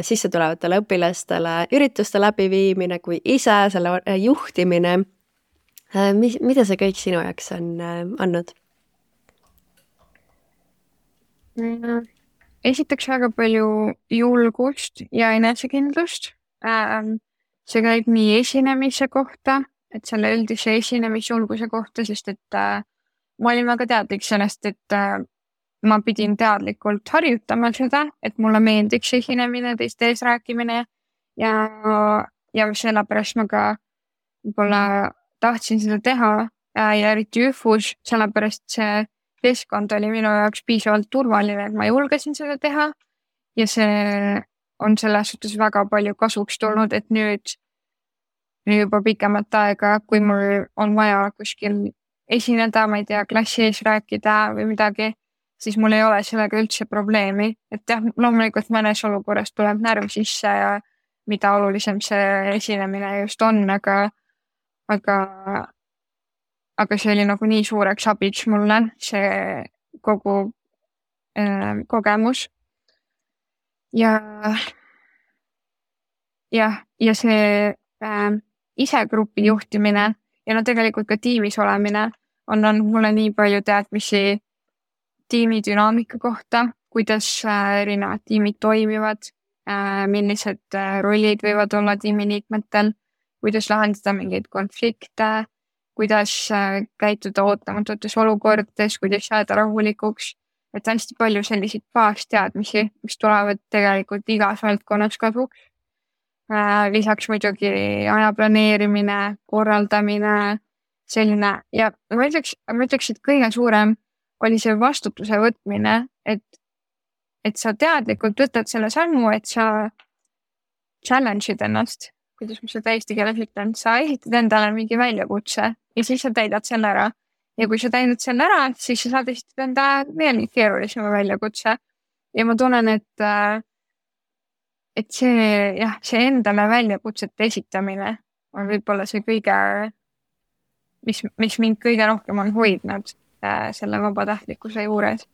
sisse tulevatele õpilastele ürituste läbiviimine, kui ise selle juhtimine. Mida see kõik sinu jaoks on andnud? Esiteks väga palju julgust ja enesekindlust. See käib nii esinemise kohta, et selle üldise esinemisjulguse kohta, sest et ma olin väga teadlik sellest, et ma pidin teadlikult harjutama seda, et mulle meeldiks esinemine, teiste ees rääkimine ja sellepärast ma ka võib-olla tahtsin seda teha ja eriti ÜFUs, sellepärast see keskkond oli minu jaoks piisavalt turvaline, et ma julgesin seda teha ja see on selles suhtes väga palju kasuks tulnud, et nüüd juba pikemat aega, kui mul on vaja kuskil esineda, ma ei tea, klassi ees rääkida või midagi, siis mul ei ole sellega üldse probleemi. Et jah, loomulikult mõnes olukorras tuleb närv sisse ja mida olulisem see esinemine just on, aga see oli nagu nii suureks abiks mulle, see kogu kogemus. Ja see ise grupi juhtimine ja tegelikult ka tiimis olemine on andnud mulle nii palju teadmisi tiimi dünaamika kohta, kuidas erinevad tiimid toimivad, millised rollid võivad olla tiimiliikmetel, kuidas lahendada mingeid konflikte, kuidas käituda ootamatutes olukordades, kuidas jääda rahulikuks. Et hästi palju selliseid baasteadmisi, mis tulevad tegelikult igas valdkonnas kasuks. Lisaks muidugi aja planeerimine, korraldamine, selline ja ma ütleks, et kõige suurem oli see vastutuse võtmine, et sa teadlikult võtad selle sammu, et sa challenge'id ennast, kuidas ma seda eesti keeles ütlen, sa esitad endale mingi väljakutse ja siis sa täidad selle ära. Ja kui sa täidad selle ära, siis sa saad esitada enda veel keerulisema väljakutse. Ja ma tunnen, et see endale väljakutsete esitamine on võib-olla see kõige, mis mind kõige rohkem on hoidnud selle vabatahtlikkuse juures.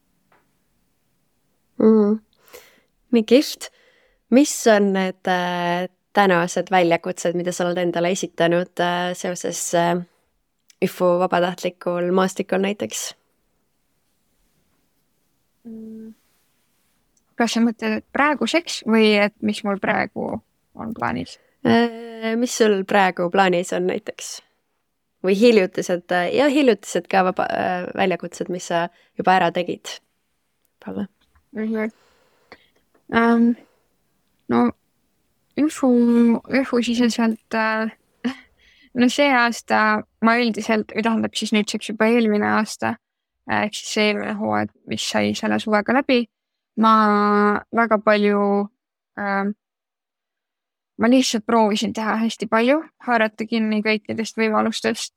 Nii kihvt. Mis on need tänased väljakutsed, mida sa oled endale esitanud seoses ÜFU vabatahtlikul maastikul näiteks? Kas sa mõtled praeguseks või et mis mul praegu on plaanis? Mis sul praegu plaanis on näiteks? Või hiljutised ka väljakutsed, mis sa juba ära tegid? Palle? No ÜFU siseselt no see aasta ma üldiselt, tähendab siis nüüdseks juba eelmine aasta, ehk siis see eelmine hooaeg, mis sai selle suvega läbi, ma väga palju, ma lihtsalt proovisin teha hästi palju, haarata kinni kõikidest võimalustest,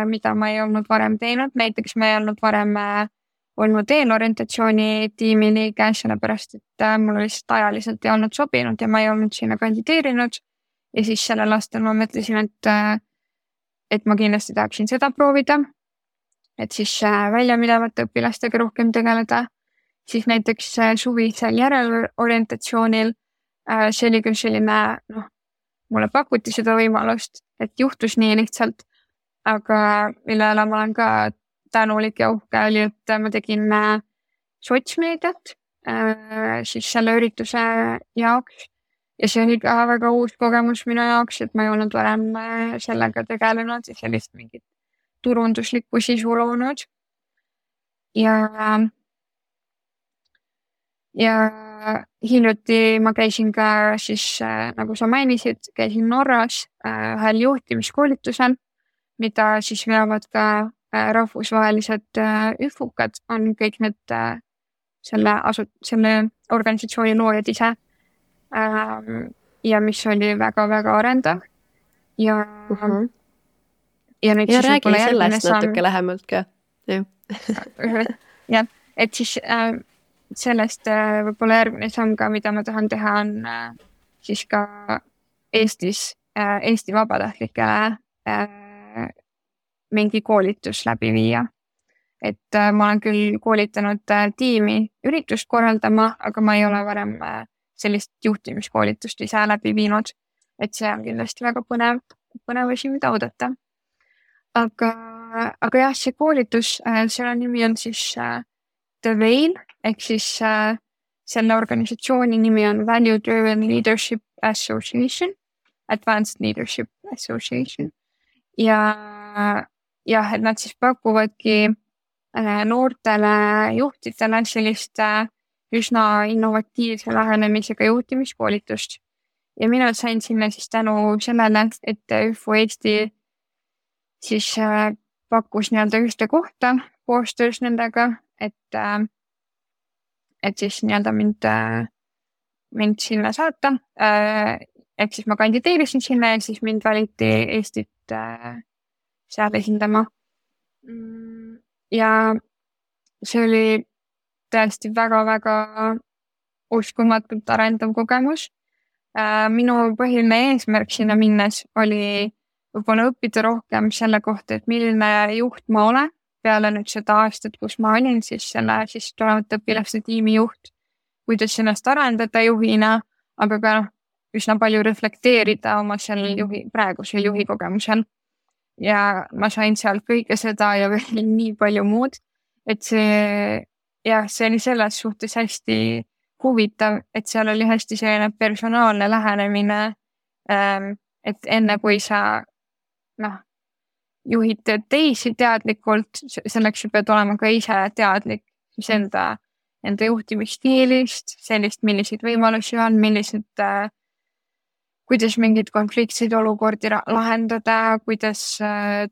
mida ma ei olnud varem teinud. Näiteks ma ei olnud varem olnud eelorientatsiooni tiimi liige, sellepärast, et mul lihtsalt ajaliselt ei olnud sobinud ja ma ei olnud sinna kandideerinud. Ja siis sellel aastal ma mõtlesin, et ma kindlasti tahaksin seda proovida, et siis väljaminevate õpilastega rohkem tegeleda. Siis näiteks suvisel järelorientatsioonil see oli küll selline, mulle pakuti seda võimalust, et juhtus nii lihtsalt, aga millele ma olen ka tänulik ja uhke oli, et ma tegin sotsmeediat siis selle ürituse jaoks. Ja see oli ka väga uus kogemus minu jaoks, et ma ei olnud varem sellega tegelenud ja sellist mingit turunduslikku sisu loonud. Ja hiljuti ma käisin ka siis, nagu sa mainisid, käisin Norras ühel juhtimiskoolitusel, mida siis veavad ka rahvusvahelised ÜFUkad, on kõik need selle organisatsiooni loojad ise. Ja mis oli väga-väga arendav. Ja nüüd ja räägi sellest natuke lähemalt ka. Ja, et siis sellest võib-olla järgmine samm ka, mida ma tahan teha, on siis ka Eesti vabatahtlikele mingi koolitus läbi viia. Et ma olen küll koolitanud tiimi üritust korraldama, aga ma ei ole varem sellist juhtimiskoolitust ise läbi viinud, et see on kindlasti väga põnev asi, mida oodata. Aga jah, see koolitus, selle nimi on siis The Veil, ehk siis selle organisatsiooni nimi on Value Driven Leadership Association, Advanced Leadership Association. Ja et nad siis pakuvadki noortele juhtidele sellist üsna innovatiivse lähenemisega juhtimiskoolitust. Ja mina sain sinna siis tänu sellele, et ÜFU Eesti siis pakkus nii-öelda ühte kohta koostöös nendega, et siis nii-öelda mind sinna saata. Et siis ma kandideerisin sinna ja siis mind valiti Eestit seal esindama. Ja see oli tõesti väga-väga uskumatult arendav kogemus. Minu põhiline eesmärk sinna minnes oli võib-olla õppida rohkem selle kohta, et milline juht ma olen peale nüüd seda aastat, kus ma olin siis selle siis tulevate õpilaste tiimi juht, kuidas ennast arendada juhina, aga ka üsna palju reflekteerida oma praegusel juhi kogemusel. Ja ma sain seal kõike seda ja veel nii palju muud, et see oli selles suhtes hästi huvitav, et seal oli hästi selline personaalne lähenemine, et enne kui sa juhid teisi teadlikult, selleks sa pead olema ka ise teadlik siis enda juhtimisstiilist, sellist, milliseid võimalusi on, kuidas mingeid konfliktseid olukordi lahendada, kuidas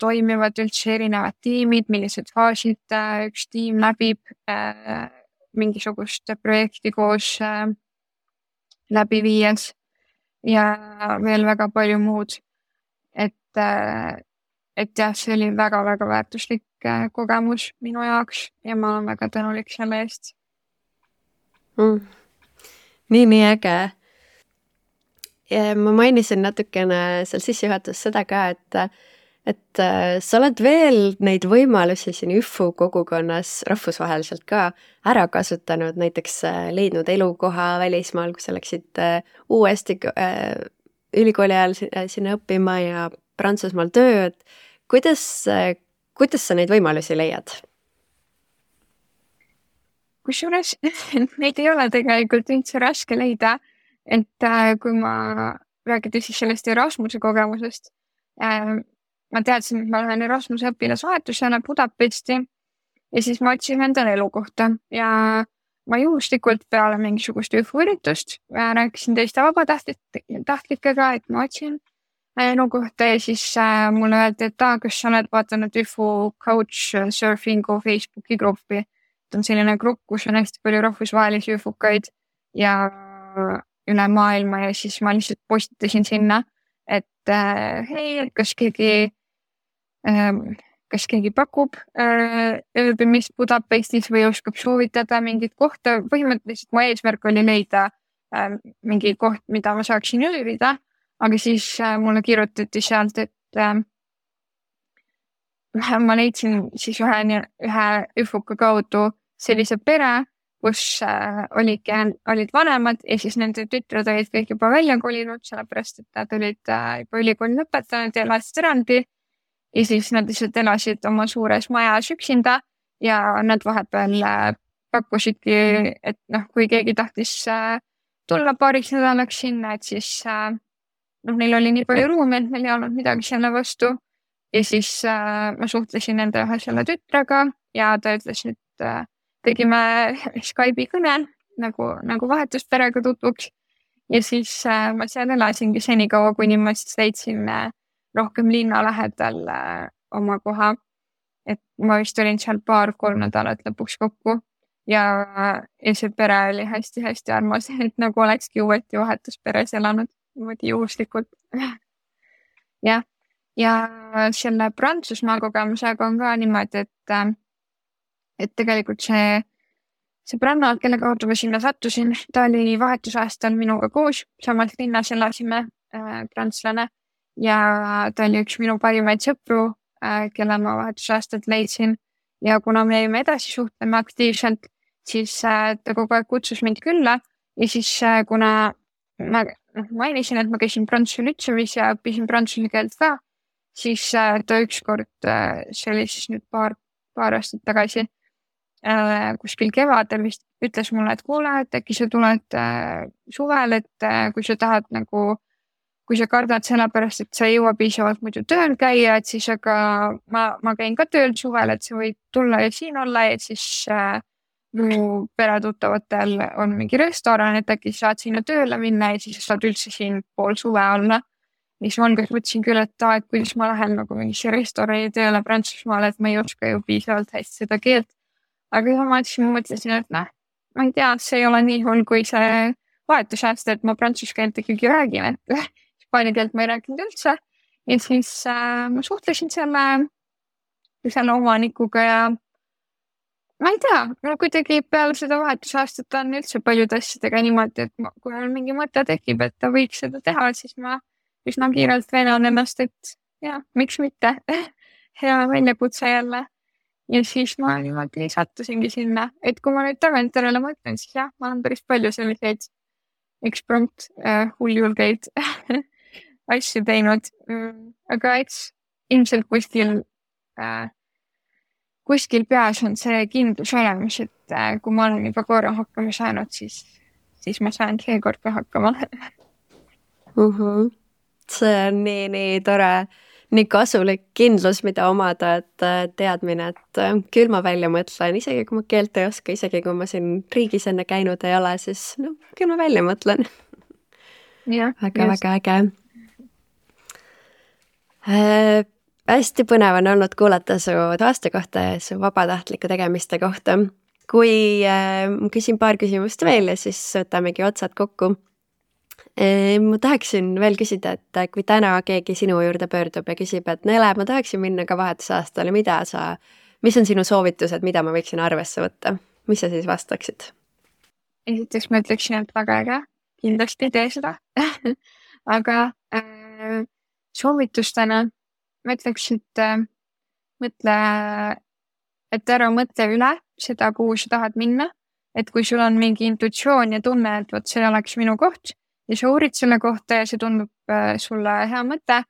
toimivad üldse erinevad tiimid, millised faasid üks tiim läbib mingisugust projekti koos läbi viies ja veel väga palju muud. Et jah, see oli väga-väga väärtuslik kogemus minu jaoks ja ma olen väga tänulik selle eest. Nii äge. Ja ma mainisin natukene seal sissejuhatuses seda ka, et sa oled veel neid võimalusi siin ÜFU kogukonnas rahvusvaheliselt ka ära kasutanud, näiteks leidnud elukoha välismaal, kui sa läksid uuesti ülikooli ajal sinna õppima ja Prantsusmaal tööd. Kuidas sa neid võimalusi leiad? Kusjuures neid ei ole tegelikult üldse raske leida, et kui ma räägin siis sellest Erasmuse kogemusest, ma teadsin, et ma lähen Erasmuse õpilasvahetusena Budapesti ja siis ma otsin endale elukohta ja ma juhuslikult peale mingisugust ÜFU üritust rääkisin teiste vabatahtlikega, et ma otsin elukohta ja siis mulle öeldi, et kas sa oled vaatanud ÜFU Couchsurfingu Facebooki gruppi. On selline grupp, kus on hästi palju rahvusvahelisi ÜFUkaid ja üle maailma ja siis ma lihtsalt postitasin sinna, et hei, kas keegi pakub ööbimist Budapestis või oskab soovitada mingit kohta. Põhimõtteliselt mu eesmärk oli leida mingi koht, mida ma saaksin ööbida, aga siis mulle kirjutati sealt, et ma leidsin siis ühe ÜFUka kaudu sellise pere, kus olid vanemad ja siis nende tütred olid kõik juba välja kolinud, sellepärast et nad olid juba ülikooli lõpetanud ja elasid eraldi ja siis nad lihtsalt elasid oma suures majas üksinda ja nad vahepeal pakkusidki, et kui keegi tahtis tulla paariks nädalaks sinna, et siis neil oli nii palju ruumi, et neil ei olnud midagi selle vastu ja siis ma suhtlesin nende ühe selle tütrega ja ta ütles, et tegime Skype'i kõne nagu vahetusperega tutvuks ja siis ma seal elasingi senikaua, kuni ma siis leidsin rohkem linna lähedal oma koha, et ma vist olin seal 2-3 nädalat lõpuks kokku ja see pere oli hästi-hästi armas, et nagu olekski uuesti vahetusperes elanud niimoodi juhuslikult. Ja selle Prantsusmaa kogemusega on ka niimoodi, et tegelikult see Branna, kelle kaudu ma sinna sattusin, ta oli vahetusaastal minuga koos, samas linnas elasime prantslane ja ta oli üks minu parimaid sõpru, kelle ma vahetusaastalt leidsin ja kuna me jäime edasi suhtlema aktiivselt, siis ta kogu aeg kutsus mind külla ja siis kuna ma mainisin, et ma käisin prantsuse lütseumis ja õppisin prantsuse keelt ka, siis ta ükskord, see oli siis nüüd paar aastat tagasi, kuskil kevadel vist ütles mulle, et kuule, et äkki sa tuled suvel, et kui sa tahad kui sa kardad sellepärast, et sa ei jõua piisavalt muidu tööl käia, et siis aga ma käin ka tööl suvel, et sa võid tulla ja siin olla ja siis mu peretuttavatel on mingi restoran, et äkki saad sinna tööle minna ja siis saad üldse siin pool suve olla. Siis ma mõtlesin küll, et kuidas ma lähen mingisse restorani tööle Prantsusmaale, et ma ei oska ju piisavalt hästi seda keelt. Aga ma mõtlesin, et ma ei tea, see ei ole nii hull, kui see vahetusaasta, et ma prantsuse keelt ikkagi räägin, et hispaania keelt ma ei rääkinud üldse. Ja siis ma suhtlesin selle omanikuga ja ma ei tea, kuidagi peale seda vahetusaastat on üldse paljude asjadega niimoodi, et kui on mingi mõte tekib, et ta võiks seda teha, siis ma üsna kiirelt veenan ennast, et jah, miks mitte. Hea väljakutse jälle. Ja siis ma niimoodi sattusingi sinna, et kui ma nüüd tagantjärele mõtlen, siis jah, ma olen päris palju selliseid eksprompt hulljulgeid asju teinud, aga eks ilmselt kuskil peas on see kindlus olemas, et kui ma olen juba korra hakkama saanud, siis ma saan seekord ka hakkama. See on nii tore. nii kasulik kindlus, mida omada, et teadmine, et küll ma välja mõtlen, isegi kui ma keelt ei oska, isegi kui ma siin riigis enne käinud ei ole, siis no küll ma välja mõtlen. Väga-väga äge. Hästi põnev on olnud kuulata su aasta kohta ja su vabatahtliku tegemiste kohta. Kui ma küsin paar küsimust veel ja siis võtamegi otsad kokku. Ma tahaksin veel küsida, et kui täna keegi sinu juurde pöördub ja küsib, et Nele, ma tahaksin minna ka vahetusaastale, mis on sinu soovitused, mida ma võiksin arvesse võtta? Mis sa siis vastaksid? Esiteks ma ütleksin, et väga äge, kindlasti tee seda. Aga soovitustena ma ütleks, et ära mõtle üle seda, kuhu sa tahad minna. Et kui sul on mingi intuitsioon ja tunne, et võt, see oleks minu koht ja sa uurid selle kohta ja see tundub sulle hea mõte,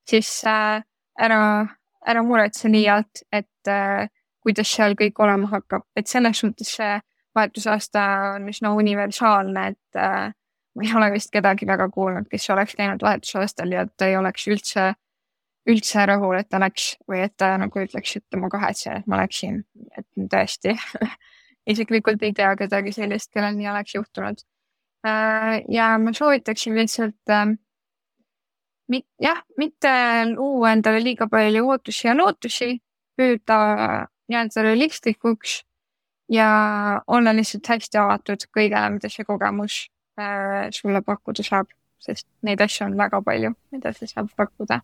siis ära muretse liialt, et kuidas seal kõik olema hakkab. Et selles suhtes see vahetusaasta on üsna universaalne, et ma ei ole vist kedagi väga kuulnud, kes oleks käinud vahetusaastal ja ta ei oleks üldse rahul, et ta läks või et ta nagu ütleks, et ma kahetsen, et ma läksin, et tõesti isiklikult ei tea kedagi sellist, kellel nii oleks juhtunud. Ja ma soovitaksin lihtsalt mitte luua endale liiga palju ootusi ja lootusi, püüda jääda realistlikuks ja olla lihtsalt hästi avatud kõigele, mida see kogemus sulle pakkuda saab, sest neid asju on väga palju, mida see saab pakkuda.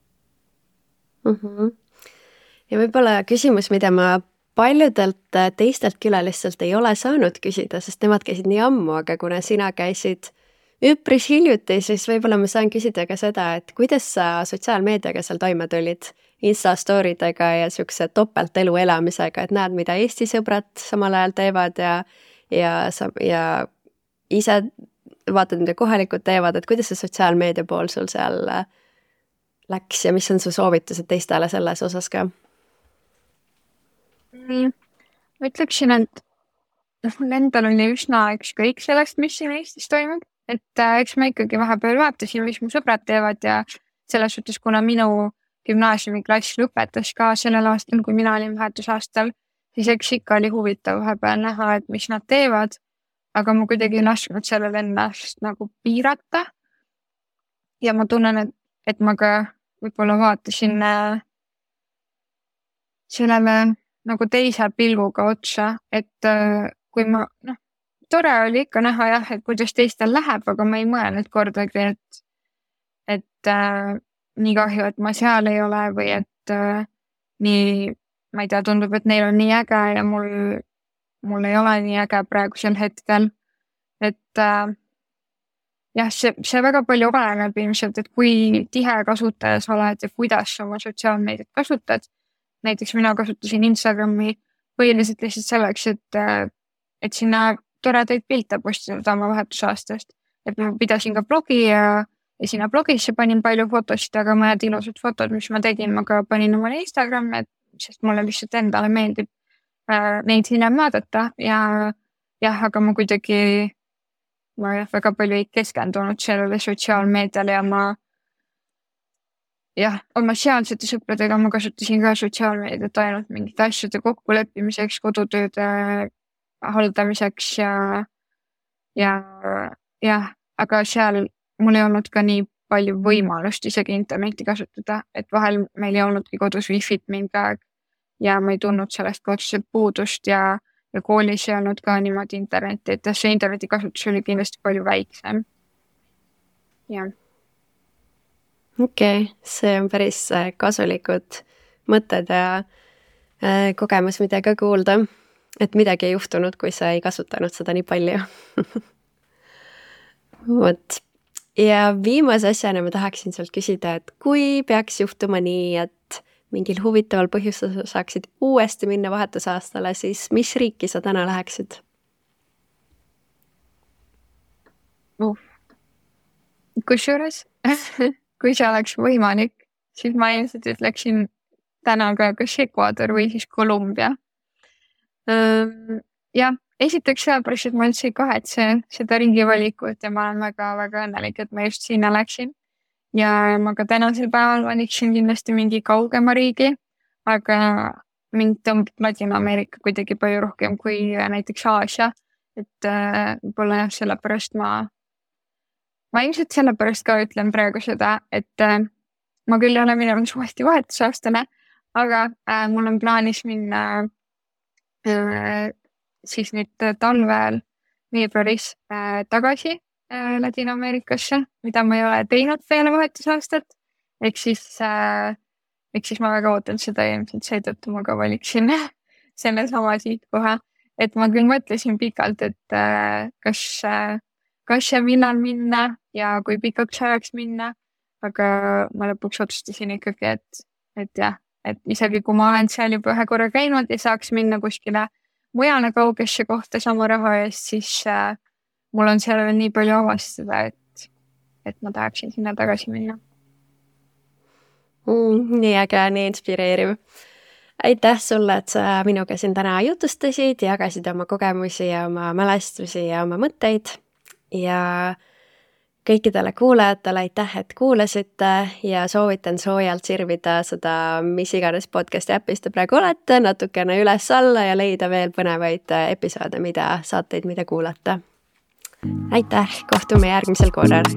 Ja võib-olla küsimus, mida ma paljudelt teistelt külalistelt ei ole saanud küsida, sest nemad käisid nii ammu, aga kuna sina käisid üpris hiljuti, siis võib-olla ma saan küsida ka seda, et kuidas sa sotsiaalmeediaga seal toime tulid, Insta-storidega ja siukse topeltelu elamisega, et näed, mida Eesti sõbrad samal ajal teevad ja ise vaatad, mida kohalikud teevad, et kuidas see sotsiaalmeedia pool sul seal läks ja mis on su soovitused teistele selles osas ka? Ma ütleksin, et mul endal oli üsna ükskõik sellest, mis siin Eestis toimub, et eks ma ikkagi vahepeal vaatasin, mis mu sõbrad teevad ja selles suhtes, kuna minu gümnaasiumiklass lõpetas ka sellel aastal, kui mina olin vahetusaastal, siis eks ikka oli huvitav vahepeal näha, et mis nad teevad, aga ma kuidagi ei lasknud sellel ennast nagu piirata. Ja ma tunnen, et ma ka võib-olla vaatasin sellele nagu teise pilguga otsa, et kui ma, tore oli ikka näha jah, et kuidas teistel läheb, aga ma ei mõelnud kordagi, et nii kahju, et ma seal ei ole või et nii, ma ei tea, tundub, et neil on nii äge ja mul ei ole nii äge praegusel hetkel, et jah, see väga palju oleneb ilmselt, et kui tihe kasutaja sa oled ja kuidas sa oma sotsiaalmeediat kasutad. Näiteks mina kasutasin Instagrami põhiliselt lihtsalt selleks, et sinna toredaid pilte postada oma vahetusaastast. Et ma pidasin ka blogi ja sinna blogisse panin palju fotosid, aga mõned ilusad fotod, mis ma tegin, ma ka panin omale Instagrami, sest mulle lihtsalt endale meeldib neid hiljem vaadata ja jah, aga ma kuidagi väga palju ei keskendunud sellele sotsiaalmeediale ja oma sealsete sõpradega ma kasutasin ka sotsiaalmeediat ainult mingite asjade kokkuleppimiseks, kodutööde haldamiseks ja aga seal mul ei olnud ka nii palju võimalust isegi interneti kasutada, et vahel meil ei olnudki kodus wifi't mingi aeg ja ma ei tundnud sellest otseselt puudust ja koolis ei olnud ka niimoodi interneti, et see interneti kasutus oli kindlasti palju väiksem. Jah. Okei, see on päris kasulikud mõtted ja kogemus, mida ka kuulda, et midagi ei juhtunud, kui sa ei kasutanud seda nii palju. Vot. Ja viimase asjana ma tahaksin sult küsida, et kui peaks juhtuma nii, et mingil huvitaval põhjusel saaksid uuesti minna vahetusaastale, siis mis riiki sa täna läheksid? Kusjuures, kui see oleks võimalik, siis ma ilmselt ütleksin täna ka kas Ecuador või siis Kolumbia. Ja esiteks sellepärast, et ma üldse ei kahetse seda ringi valikut ja ma olen väga-väga õnnelik, et ma just sinna läksin. ja ma ka tänasel päeval valiksin kindlasti mingi kaugema riigi, aga mind tõmbab Ladina-Ameerika kuidagi palju rohkem kui näiteks Aasia, et võib-olla jah, sellepärast ma ilmselt sellepärast ka ütlen praegu seda, et ma küll ei ole minemas uuesti vahetusaastale, aga mul on plaanis minna siis nüüd talvel veebruaris tagasi Ladina-Ameerikasse, mida ma ei ole teinud peale vahetusaastat. Ehk siis ma väga ootan seda ja ilmselt seetõttu ma ka valiksin selle sama sihtkoha. Et ma küll mõtlesin pikalt, et kas ja millal minna ja kui pikaks ajaks minna, aga ma lõpuks otsustasin ikkagi, et jah, et isegi kui ma olen seal juba ühe korra käinud ja saaks minna kuskile mujale kaugesse kohta sama raha eest, siis mul on seal veel nii palju avastada, et ma tahaksin sinna tagasi minna. Nii äge, nii inspireeriv. Aitäh sulle, et sa minuga siin täna jutustasid, jagasid oma kogemusi ja oma mälestusi ja oma mõtteid ja kõikidele kuulajatele aitäh, et kuulasite ja soovitan soojalt sirvida seda, mis iganes podcasti äpis te praegu olete, natukene üles-alla ja leida veel põnevaid episoode, saateid, mida kuulata. Aitäh, kohtume järgmisel korral!